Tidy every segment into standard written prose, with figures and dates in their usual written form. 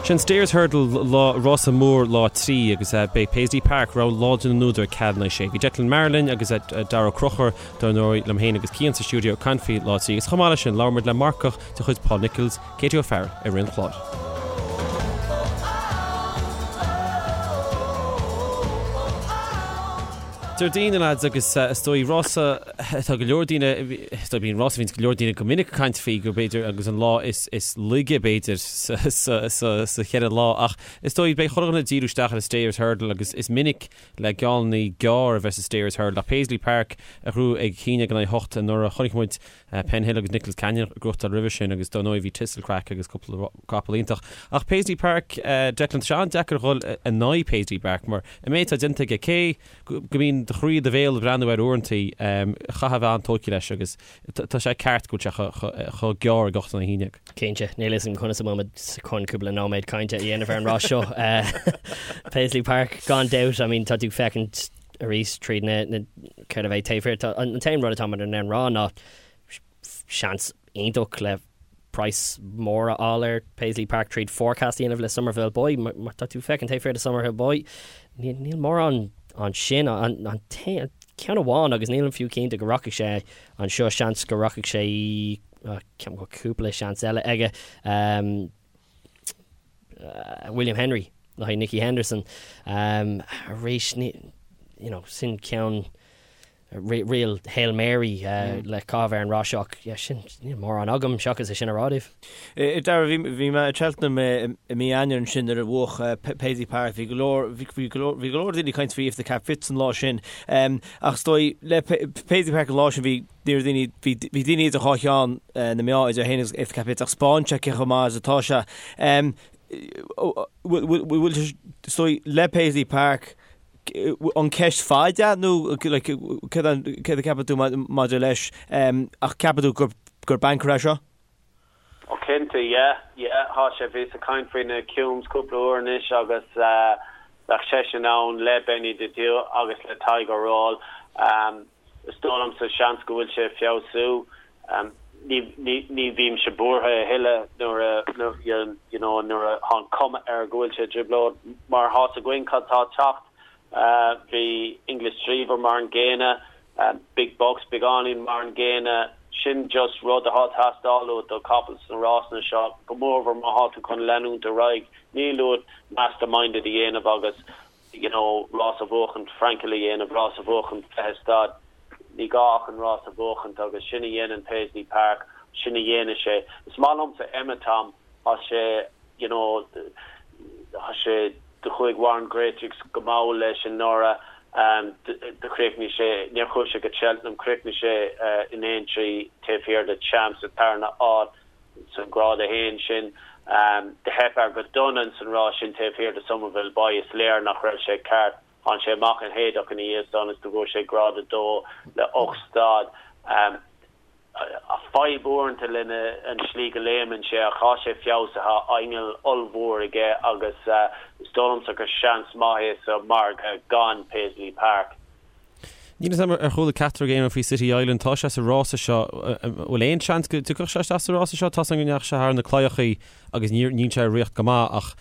Sin Stayers Hurdle lá, rása mór lá 3 agus beidh Paisley Park, rogha láidir na n-údar ag ceathrú i ndiaidh a sé. Bhí Declan Maher linn agus Darragh Ó Conchúir, dar ndóigh, liom féin agus Cian sa stiúideo ag caint faoi lá 3 agus chomh maith leis sin labhair muid le marcach de chuid Paul Nicholls, Katie O'Farrell i rith an chláir. Déardaoin, a lads, agus is dóigh rása, tá go leor daoine, is dóigh bíonn rása a bhíonns go leor daoine go minic ag caint faoi go b'fhéidir agus an lá is is laige b'fhéidir sa sa sa sa cheithre lá ach is dóigh beidh chuile dhuine ag díriú isteach ar an Stayers Hurdle agus is minic le geallannaí gearr a bheith sa Stayers Hurdle ach Paisley Park a ghnóthaigh ag 1-8 anuraidh chonaic muid Penhill agus Nichols Canyon ag gnóthachtáil roimhe sin agus dar ndóigh bhí Thistlecrack agus cúpla capall iontach. Ach Paisley Park, Declan, tá sé an-deacair a dhul in aghaidh Paisley Park mar an méid atá déanta aige, cé go mbíonn do chroí i do bhéal ag breathnú air uaireantaí, chaithfeá a bheith an-tógtha leis agus tá sé ceart go bhfuil sé chomh gearr ag 8-11. Cinnte, níl a fhios agam conas a bhfuil muid chun cúpla nóiméad cainte a dhéanamh ar an rás seo. Paisley Park, gan dabht, I mean tá tú ag féachaint arís tríd na na céard a bheidh taobh thiar. Tá an t-aon rud atá muid in ann rá ná seans iontach le praghas mór a fháil ar Paisley Park tríd forecast a dhéanamh le Summerville Boy. Má tá tú féachaint taobh thiar de Summerville Boy, níl níl mórán ansin. An an t-aon ceann amháin agus nílim fiú cinnte go rachaidh sé anseo, seans go rachaidh sé ceapaim go bhfuil cúpla seans eile aige. William Henry le haghaidh Nicky Henderson. Arís, you know, sin ceann real Hail Mary le caitheamh ar an rás seo ach yeah, sin, níl mórán agam seachas é sin a rá daoibh. Dara, bhí mé i Cheltenham i mí Eanáir ansin nuair a bhuaigh Paisley Park. Bhí go leor, bhí go leor, bhí go leor daoine ag caint faoi If the Cap Fits an lá sin. Ach is dóigh, le Paisley Park an lá sin bhí Ní raibh daoine, bhí, bhí daoine idir dhá cheann na meá idir é féin agus If the Cap Fits ach 'spáin sé cé chomh maith is atá sé. Bhfuil, bhfuil, is dóigh, le Paisley Park, an ceist faid é nó like, céard a, céard a ceapann tú maidir leis ach ceapann tú gur, gur banker é seo? Ó cinnte, yeah, yeah, thá sé, bhíos ag caint faoi na Cumes cúpla uair anois agus bheadh seisean ann le Benny the Due agus le Tiger Roll. Is dóigh liomsa seans go bhfuil sé ag feabhsú. Ní, ní, ní bhímse buartha a thuilleadh nuair a, you know, nuair a thá an cuma air go bhfuil sé i dtrioblóid mar thá's againn cad tá ag teacht. Bhí English Drever mar an gcéanna, Big Bucks beagáinín mar an gcéanna. Sin just rud atá ag teastáil uait do chapall sna rásanna seo, go mórmhór má thá tú chun leanúint ar aghaidh. Níl uait masterminded a dhéanamh agus you know rás a bhuachaint, Frankel a dhéanamh, rás a bhuachaint 20 stad. Ní gá ach an rás a bhuachaint agus sin a dhéanann Paisley Park, sin a dhéanfaidh sé. Is maith liomsa Emitom. Tá sé, you know, tá sé, do chuaigh Warren Greatrex go mall leis anuraidh, do chríochnaigh sé, níor chuaigh sé go Cheltenham, chríochnaigh sé in Aintree taobh thiar de Champ sa tarna áit sa Grád 1 sin. Do theip air go dona ins an rás sin taobh thiar de Summerville Boy, is léir nach raibh sé ceart. Tháinig sé amach in Haydock ina dhiaidh san is do bhuaigh sé Grád 2 le 8 stad. Fadhb uaireanta lena an slí go léimeann sé ach tá sé feabhsaithe, inneall ollmhór aige agus is dóigh liomsa gur seans maith é sa margadh gan Paisley Park. Níl 'fhios a'm ar chuala ceachtar agaibh aon rud faoi City Island, tá sé sa rása seo, bhfuil aon seans go dtiocfadh sé isteach sa rása seo? Tá's agam go ndeachaigh sé thar na claíochaí agus níor níl sé ag rith go maith ach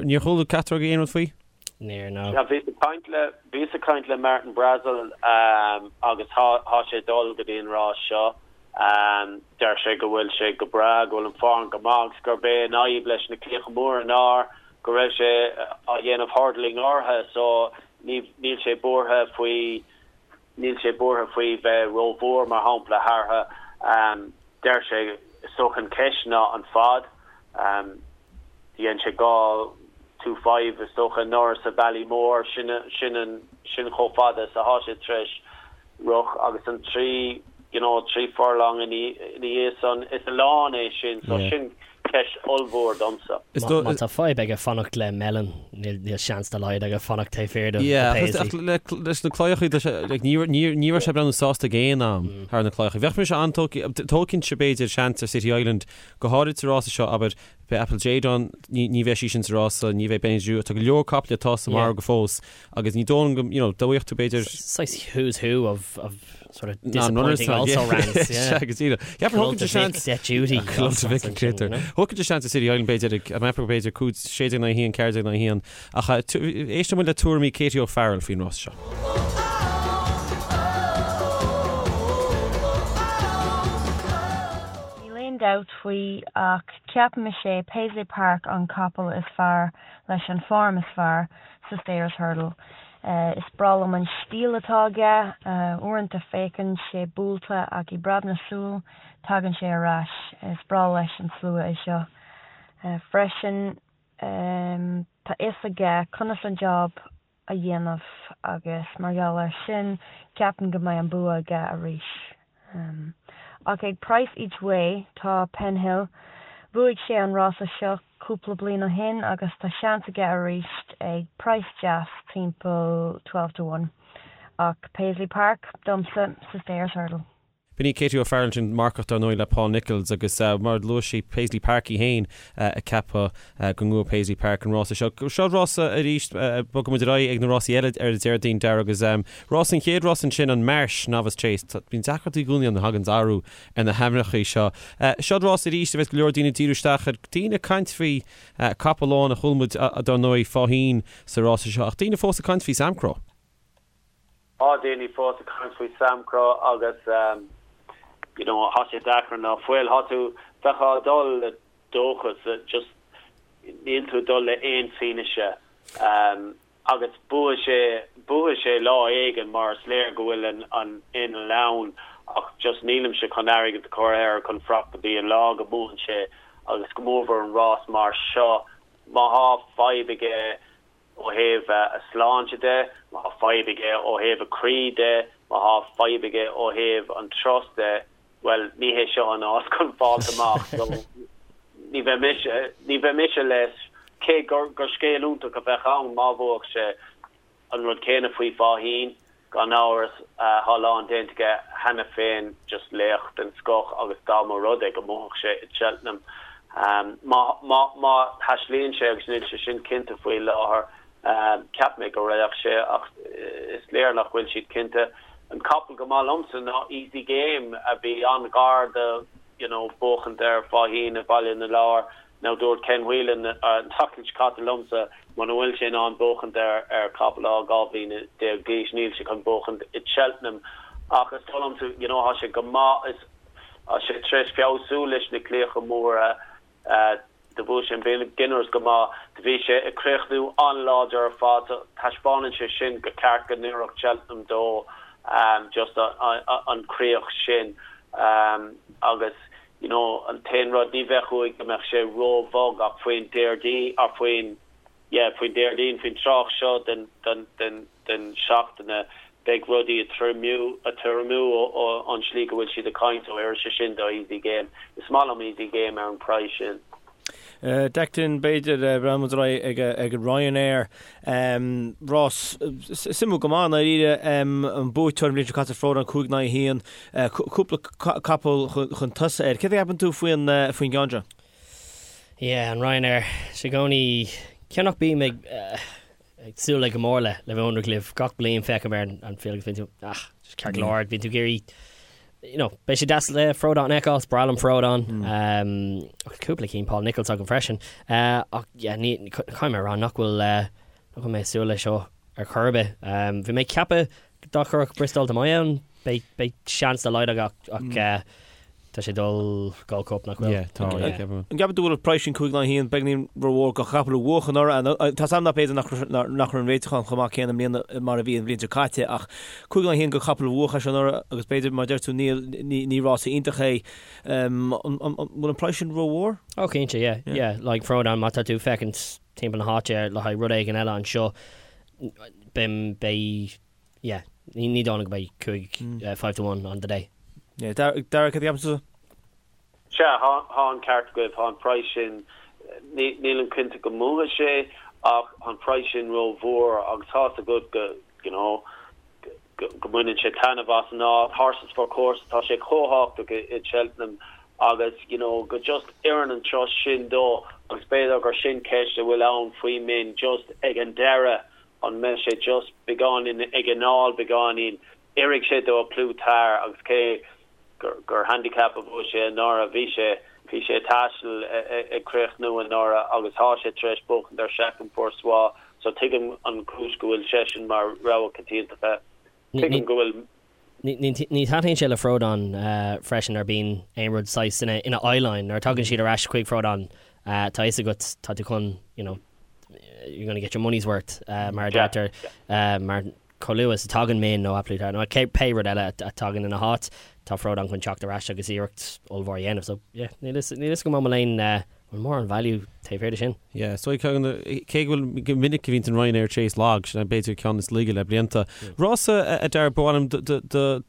níor chuala ceachtar agaibh aon rud faoi? Níor, no. Yeah, bhíos ag caint le, bhíos ag caint le Martin Brassil agus thá, thá sé ag dul go dtí an rás seo. Deir sé go bhfuil sé go breá, go bhfuil an form go maith agus gurb é an fhadhb leis na claíocha móra ná go raibh sé á dhéanamh hurdling orthu so ní, níl sé buartha faoi, níl sé buartha faoi bheith rómhór mar shampla thartha. Deir sé, is dócha an cheist ná an fad. Dhein sé 2 2 5 is dócha anuraidh sa Ballymore, sin sin an sin chomh fada is athá sé tar éis rith agus an 3 you know 3 furlong ina ina dhiaidh san is a lán é sin so sin ceist ollmhór domsa. Is Má tá fadhb aige fanacht le Melon níl níl seans dá laghad aige fanacht taobh thiar de Yeah, ach Paisley. le leis na claíochaí tá sé like ní ní ní raibh sé ag breathnú sásta ag aon am thar na claíochaí. Bheadh mise an-tógtha tógfainnse b'fhéidir seans ar City Island go háirid sa rása seo abair Beidh Apple Jade ann, ní bheidh sí sin sa rása, ní bheidh Benny the Jew, tá go leor caiple atá sa margadh fós agus ní dóigh liom go, you know, dá bhfaigheadh tú b'fhéidir. Saghas who's who of of. Sort of disappointing also rans, yeah. Sea, go díreach. Cheapfainn thógfainn de seans. Debt duty. Clóite Mhic an Créatúir. Thógfainn de seans i City Island b'fhéidir ag, mheapfadh b'fhéidir 5, 16 in aghaidh 1, 14 in aghaidh 1. Ach éisteann muid le tuairimí Katie O'Farrell faoin rás seo. Níl aon dabht faoi ach ceapaim is é Paisley Park an capall is fearr leis an form is fearr sa Stayers Hurdle. Is breá liom an stíl atá aige, uaireanta féachann sé buailte ach i bpreab na súl tagann sé ar ais. Is breá leis an slua é seo freisin. Tá fhios aige conas an job a dhéanamh agus mar gheall air sin ceapaim go mbeidh an bua aige arís. Ach ag price each way tá Penhill, bhuaigh sé an rása seo cúpla bliain ó shin agus tá seans aige arís ag price deas timpeall 12 to 1. Ach Paisley Park domsa sa Stayers Hurdle. B'in í Katie O'Farrell ansin, marcach dar ndóigh le Paul Nicholls agus mar a luaigh sí Paisley Park í féin ag ceapadh go mbuafaidh Paisley Park an rása seo. Seo rása arís, bogfaidh muid ar aghaidh ag na rásaí eile ar an Déardaoin, Darragh, agus rás an chéad rás ansin an Marsh Novice Chase. Bíonn deacrachtaí i gcónaí ann a thagann athrú ar na hainmneacha seo. Seo rás arís a bheas go leor daoine ag díriú isteach air, daoine ag caint faoi capall amháin a chuala muid dar ndóigh Faugheen sa rása seo ach daoine fós ag caint faoi Samcro. Tá daoine fós ag caint faoi Samcro agus you know tá sé deacair ná fuil. Tá tú, bheifeá ag dul le dóchas, just níl tú ag dul le aon fianaise agus buafaidh sé, buafaidh sé lá éigin mar is léir go bhfuil an an inneall ann ach just nílimse chun airgead a chur air chun fanacht go dtí an lá go mbuann sé agus go mórmhór an rás mar seo má thá fadhb aige ó thaobh a shláinte de, má thá fadhb aige ó thaobh a chroí de, má thá fadhb aige ó thaobh an turas de, bhuel, ní hé seo an áit chun fáilt amach. So, ní bheidh mise, ní bheidh mise leis, cé gur, gur scéal iontach a bheadh ann má bhuafadh sé. An rud céanna faoi Faugheen. Gan amhras, tá a lán déanta aige cheana féin, just laoch den scoth agus dá mba rud é go mbuafadh sé i Cheltenham, má, má, má thaislíonn sé, agus níl sé sin cinnte faoi láthair, cheap mé go raghadh sé ach is léir nach bhfuil siad cinnte. An capall go maith liomsa ná Easy Game a bhí an-ghar do, you know, buachaint ar Faugheen i Baile na Lobhar. Now dúirt Ken Whelan an tseachtain seo caite liomsa muna bhfuil sé in ann buachaint ar ar chapall atá 12 bhliana d'aois níl sé chun buachaint i Cheltenham ach is dóigh liomsa you know tá sé go maith is tá sé tar éis feabhsú leis na claíocha móra do bhuaigh sé an Beginners go maith do bhí sé ag críochnú an-láidir ar fad so taispeánann sé sin go ceart go n-oirfeadh Cheltenham dó just an chríoch sin agus you know an t-aon rud, ní bheadh uaidh go mbeadh sé ró-bhog ach faoin Déardaoin, or faoin, yeah, faoin Déardaoin, faoin tráth seo den, den, den, den seachtaine, beidh rudaí ag triomú, ag triomú ó, an slí go bhfuil siad ag caint, so oirfidh sé sin do Easy Game. Is maith liom Easy Game ar an praghas sin. Declan, b'fhéidir, breathnóidh muid ar aghaidh ag an Ryanair. Rás suimiúil go maith, i ndáiríre. An buaiteoir an bhliain seo caite, Frodon, 5 in aghaidh 1. Cúpla capall chun tosaigh air. Céard a cheapann tú faoin gceann seo? Yeah, an Ryanair. Is i gcónaí, cé nach mbím ag ag súil le go mór le le bheith ionraic libh gach bliain féachaim ar an field agus bíonn tú ah just ceart go leor bíonn tú ag iarraidh you know beidh sé deas le Frodon a fheiceáil is breá liom Frodon um, ach cúpla cinn Paul Nicholls agam freisin uh, ach yeah, ní caithfidh mé a rá nach bhfuil uh, nach bhfuil mé ag súil leis seo ar chor ar bith um, bhí mé ag ceapadh Dá gcuirfeadh Bristol De Mai ann, beidh seans dá laghad aige ach tá sé ag dul Gold Cup, nach bhfuil? Yeah, tá, yeah, ceapaim. An gceapann tú go bhfuil an praghas sin 5 in aghaidh 1 beagáinín rómhór do chapall a bhuaigh anuraidh? Tá 's agam nach b'fhéidir nach raibh an réiteachán chomh maith céanna i mbliana mar a bhí an bhliain seo caite ach 5 in aghaidh 1 do chapall a bhuaigh é seo anuraidh agus b'fhéidir mar a deir tú níl ní rása iontach é. An bhfuil an praghas sin rómhór? Oh cinnte, yeah, yeah. Like Frodon, má tá tú ag féachaint timpeall na háite le haghaidh rud éigin eile anseo, Beidh, beidh, yeah, ní dóigh liom go mbeidh 5, 5 to 1 on the day. Yeah, Darragh, cad a cheapann tusa? Sea, thá an ceart agaibh, thá an praghas sin, nílim cinnte go mbuafaidh sé ach thá an praghas sin ró-mhór agus tá's agat go, you know, go mbaineann sé taitneamh as an áit, horses for courses, tá sé chomh tábhachtach i Cheltenham agus, you know, go just oireann an turas sin dó agus b'fhéidir gur sin ceist a bhfuil ann faoi min just ag an deireadh an mbeidh sé just beagáinín ag anáil beagáinín. Oirfidh sé do A Plus Tard agus cé gur handicap a bhuaigh sé anuraidh, bhí sé bhí sé ag taisteal ag críochnú anuraidh agus tá sé tar éis buachaint ar Chacun Pour Soi so tuigim an chúis go bhfuil seisean mar rogha coitianta. Tuigim go bhfuil. Ní thaitníonn sé le Frodon freisin nuair bíonn aon rud saghas ina ina eyeline nuair a tagann siad ar ais chuig Frodon tá fhios agat tá tú chun you know you're gonna get your money's worth mar a deirtear mar Chomh luath is a tagann Min nó A Plus Tard nó pé rud eile a tagann ina háit, tá Frodon chun teacht ar ais agus iarracht ollmhór a dhéanamh. So, yeah, níl fhios, níl fhios agam an bhfuil aon, an bhfuil mórán value taobh thiar de sin. Yeah, so cé go bhfuil go minic a bhíonn an Ryanair Chase lag, sin b'fhéidir ceann is laige le blianta. Rása a Dara, ba mhaith liom do, do,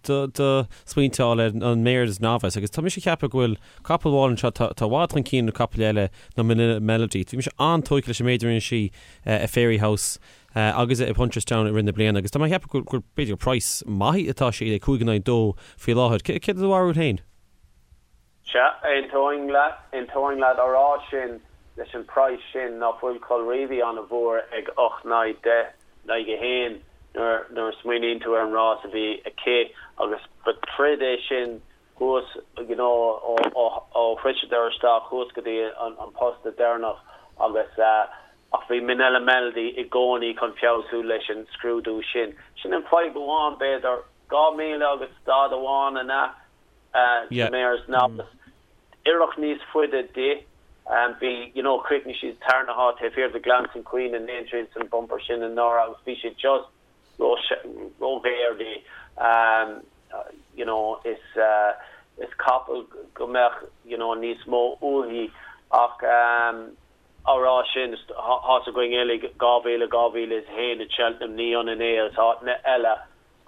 do, do smaointe a fháil air an Mares Novice agus tá mise ag ceapadh go bhfuil capall amháin anseo atá i bhfad chun cinn na capaill eile ná Manila Melody. Bhí mise an-tógtha leis an méid a rinne sí i Fairyhouse agus i Punchestown i rith na bliana agus tá mé ag ceapadh gur b'fhéidir gur praghas maith atá sé le 5 in aghaidh 2 faoi láthair. Céard é do bharúil féin? Sea, aontóinn leat, aontóinn leat á rá sin leis an praghas sin ná fuil Colreevy an-mhór ag 8 in aghaidh 10 in aghaidh 1 nuair nuair a smaoiníonn tú ar an rás a bhí aici agus ba troid é sin thuas you know ó shroiseadar isteach thuas go dtí an posta deireanach agus ach bhí Minella Melody i gcónaí chun feabhsú leis an scrúdú sin. Sin an fadhb amháin b'fhéidir, 2,000 agus stad amháin an ea sa Mares Novice. Oirfeadh níos faide di. Bhí you know chríochnaigh sí sa tarna háit taobh thiar de Glancing Queen in Aintree san bumper sin anuraidh agus bhí sé just róghéar di. You know is is capall go mbeadh you know níos mó uaithi ach á rá sin tá's againn uilig 2000, 2001 i Cheltenham ní ionann é agus áiteanna eile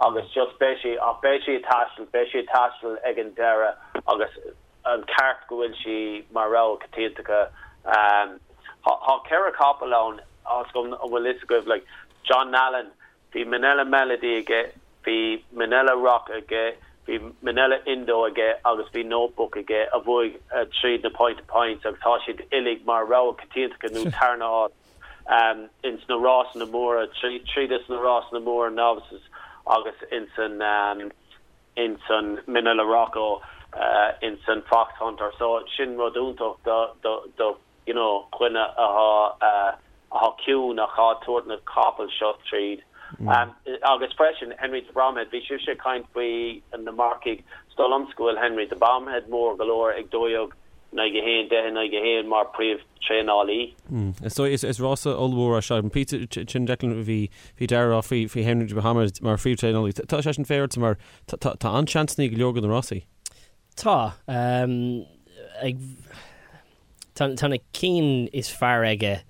agus just beidh sí ach beidh sí ag taisteal beidh sí ag taisteal ag an deireadh agus an ceart go bhfuil sí mar rogha coitianta. Tá ceithre capall ann tá's agam an bhfuil fhios agaibh like John Nallen, bhí Minella Melody aige, bhí Minella Rock aige, bhí Minella Indo aige agus bhí Notebook aige a bhuaigh tríd na point to points agus tá siad uilig mar rogha coitianta nó tarna háit ins na rásanna móra, tríd is na rásanna móra novices agus ins an ins an Minella Rocco, ins an Foxhunter. So sin rud iontach do do do you know dhuine athá athá ciúin ach athá ag tabhairt na capaill seo tríd. Agus freisin Henry de Bromhead, bhí sibhse ag caint faoi na marcaigh, is dóigh liomsa go bhfuil Henry de Bromhead mór go leor ag 12 in aghaidh 1, 10 in aghaidh 1 mar príomh-traenálaí. Is dóigh, is rása ollmhór é seo. An píosa sin Declan bhí bhí Dara ag rá faoi faoi Henry de Bromhead mar phríomh-traenálaí. Tá sé sin féaráilte mar tá tá an-seansanna ag go leor de na rásaí. Tá. Ag Tá na cinn is fearr aige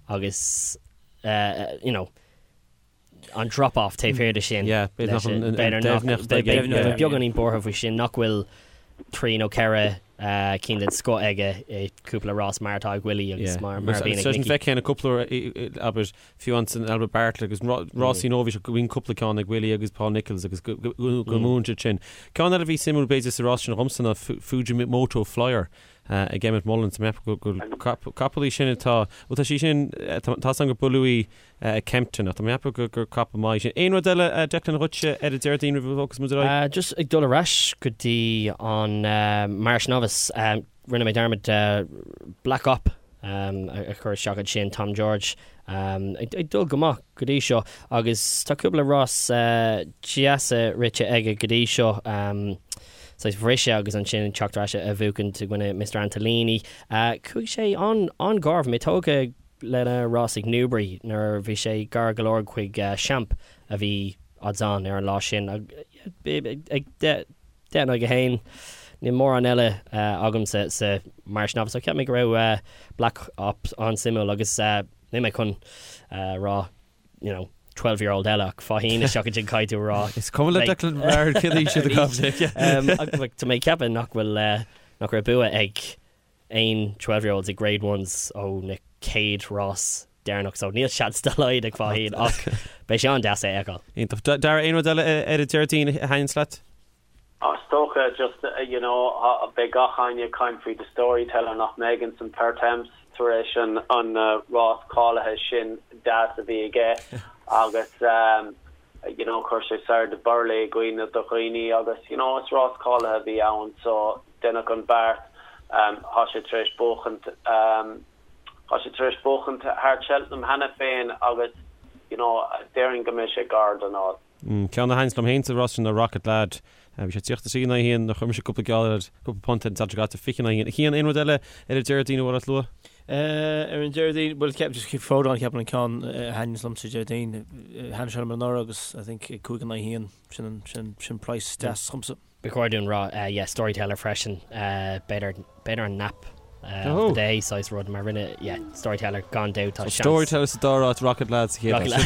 agus you know an drop off taobh thiar de sin. Yeah, b'fhéidir nach an deimhneacht aige. Bheadh beagáinín buartha faoi sin nach bhfuil trí nó ceithre cinn den scoth aige i cúpla rás mar atá ag Willie agus mar a bhíonn ag Nicky. Feicfidh na cúpla abair fiú ansan Albert Bartlett agus rásaí nóibhís go bhíonn cúpla ceann ag Willie agus Paul Nicholls agus go mbuann siad sin. Ceann eile a bhí suimiúil b'fhéidir sa rás sin dhomsa ná Fujimoto Flyer. ag Emmet Mullins. Tá mé ag ceapadh go bhfuil capall í sin atá, bhuel tá sí sin, tá 's agam gur buaileadh í ag Kempton ach tá mé ag ceapadh gur capall maith í sin. Aon rud eile Declan dhuitse ar an Déardaoin roimh a bhogfas muid ar aghaidh? Just ag dul ar ais go dtí an Mares Novice, rinne mé dearmad Black Op a chur isteach ansin, Tom George ag dul go maith go dtí seo agus tá cúpla rás deasa rite aige go dtí seo. Saghas bhriseadh agus ansin teacht ar ais a bhuachaint i gcoinne Mister Antolini. Chuaigh sé an-ghar, bhí mé tógtha lena rás ag Newbury nuair a bhí sé gar go leor chuig Champ a bhí odds on ar an lá sin. Ag 10 in aghaidh 1, níl mórán eile agamsa sa Mares Novice, so cheap mé go raibh Black Op an-suimiúil agus níl mé chun rá you know, 12 year old eile ach Faugheen isteach ansin caithfidh tú a rá. Is cuma le Declan Bard cén aois iad a gabh Tá mé ag ceapadh nach bhfuil nach raibh bua ag aon 12 year olds ag Grade Ones ó na chéad rás deireanach so níl seans dá laghad ag Faugheen ach beidh sé an-deas é a fheiceáil. Iontach. Dara, aon rud eile ar an Déardaoin a thaitníonns leat? Is dócha just you know beidh gach éinne ag caint faoi The Storyteller nach mbeidh ins an Pertemps tar éis an an rás cáilithe sin deas a bhí aige agus you you know chuir sé Sire Du Berlais i gcuimhne do dhaoine agus you know is rás cáilithe a bhí ann so deineadh an beart. Tá sé tar éis buachaint tá sé tar éis buachaint thar Cheltenham cheana féin agus you know déarfainn go mbeidh sé gar don áit. Ceann a thaitníonns liom féin sa rás sin ná Rocket Lad. Bhí sé 33 in aghaidh 1, chuir mise cúpla geall air, cúpla punt ar an Satharn seo caite, 20 in aghaidh 1. A Chian, aon rud eile ar an Déardaoin a bhfuil ort lua? Ar an Déardaoin, bhuel, ceap, just Frodon ceapaim an ceann a thaitníonns liom sa Déardaoin. Thaitnigh sé liom anuraidh agus I think 5 in aghaidh 1, sin, sin, sin price deas dhomsa. Ba chóir dúinn rá, yeah, Storyteller freisin, b'fhéidir, b'fhéidir an nap of the day saghas rud mar rinne, yeah, Storyteller gan dabht tá seans. Storyteller sa dara háit, Rocket Lad sa chéad áit.